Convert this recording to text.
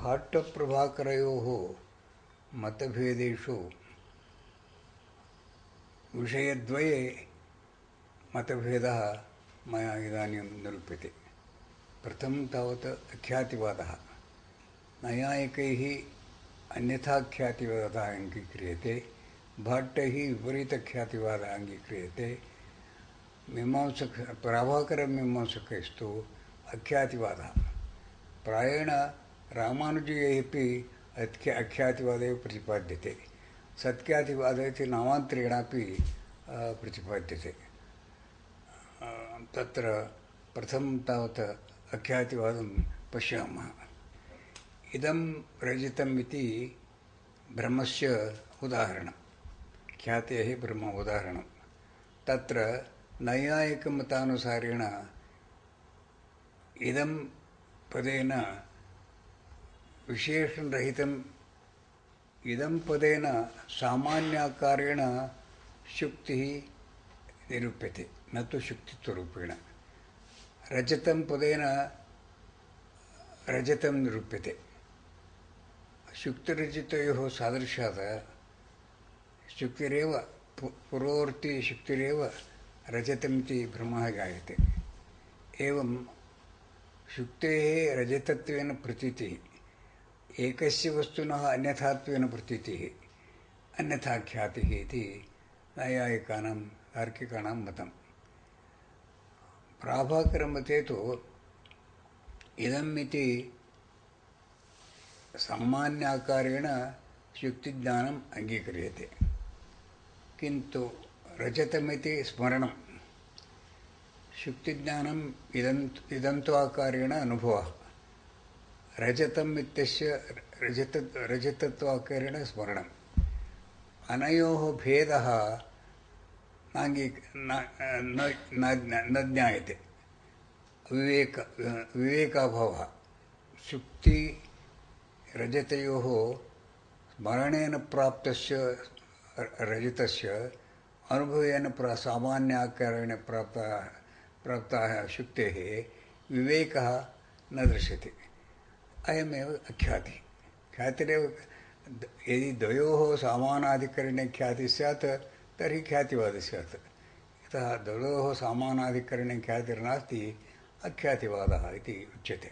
भाट्टप्रभाकरयोः मतभेदेषु विषयद्वये मतभेदः मया इदानीं निरूप्यते। प्रथमं तावत् अख्यातिवादः। नैयायिकैः अन्यथाख्यातिवादः अङ्गीक्रियते, भाट्टैः विपरीतख्यातिवादः अङ्गीक्रियते। प्रभाकरमीमांसकैस्तु अख्यातिवादः। प्रायेण रामानुजैः अपि अख्यातिवादः एव प्रतिपाद्यते। सत्ख्यातिवादः इति नामान्तरेणापि प्रतिपाद्यते। तत्र प्रथमं तावत् अख्यातिवादं पश्यामः। इदं रजतम् इति ब्रह्मस्य उदाहरणं, ख्यातेः ब्रह्म उदाहरणं। तत्र नैयायिकमतानुसारेण इदं पदेन विशेषणरहितम्, इदं पदेन सामान्याकारेण शुक्तिः निरूप्यते, न तु शुक्तित्वरूपेण। रजतं पदेन रजतं निरूप्यते। शुक्तिरजतयोः सादृश्यात् शुक्तिरेव पूर्ववर्ती शुक्तिरेव रजतमिति भ्रमः जायते। एवं शुक्तेः रजतत्वेन प्रतीतिः, एकस्य वस्तुनः अन्यथात्वेन प्रतीतिः, अन्यथाख्यातिः इति नैयायिकानां तार्किकाणां मतं। प्राभाकरमते तु इदम् इति सामान्याकारेण शुक्तिज्ञानम् अङ्गीक्रियते, किन्तु रजतमिति स्मरणं, शुक्तिज्ञानम् इदन्त्वाकारेण अनुभवः, रजतम् इत्यस्य रजतत्वाकारेण स्मरणम्। अनयोः भेदः न ज्ञायते। विवेकाभावः। शुक्तिरजतयोः स्मरणेन प्राप्तस्य रजतस्य अनुभवेन सामान्याकारेण प्राप्ताः शुक्तेः विवेकः न दृश्यते। अयमेव अख्यातिः। ख्यातिरेव यदि द्वयोः समानाधिकरणे ख्यातिः स्यात् तर्हि ख्यातिवादः स्यात्। यतः द्वयोः समानाधिकरणे ख्यातिर्नास्ति, अख्यातिवादः इति उच्यते।